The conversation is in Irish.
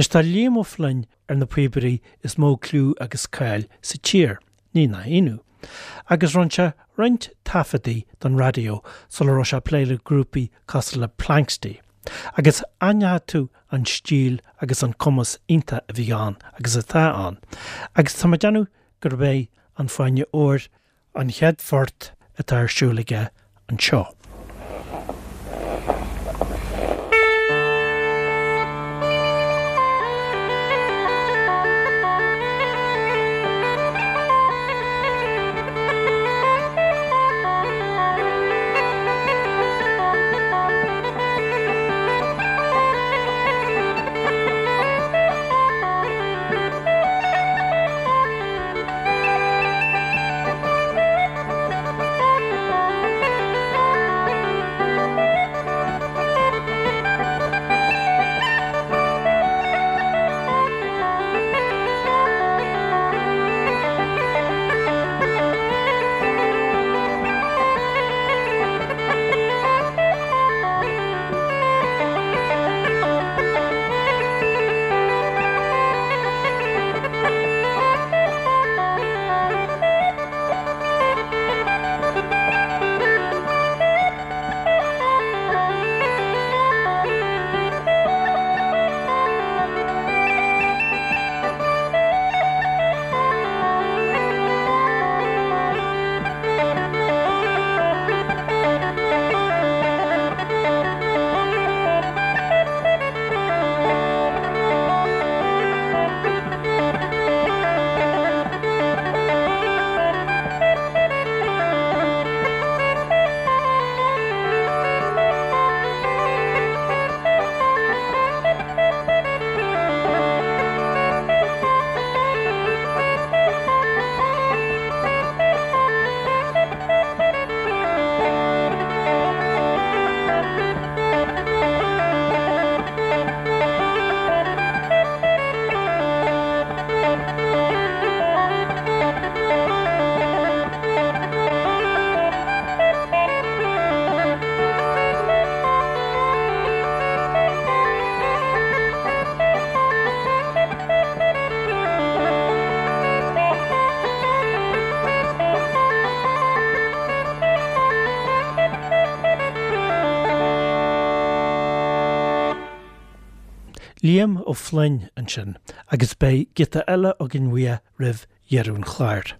Anois tá Liam Ó Floinn ar na píobairí is mó cliú agus cáil sa tír, ní nach ionadh, agus rinne sé roinnt taifeadtaí don raidió sula raibh sé ag plé le grúpaí cosúil le Planxty, agus aithneoidh tú an stíl agus an cumas iontach a bhí ann agus atá ann, agus tá mé ag déanamh gurb é An Fáinne Óir an chéad phort atá ar siúl aige anseo. Liam Ó Floinn ansin agus beidh giota eile againn uaidh roimh dheireadh an chláir.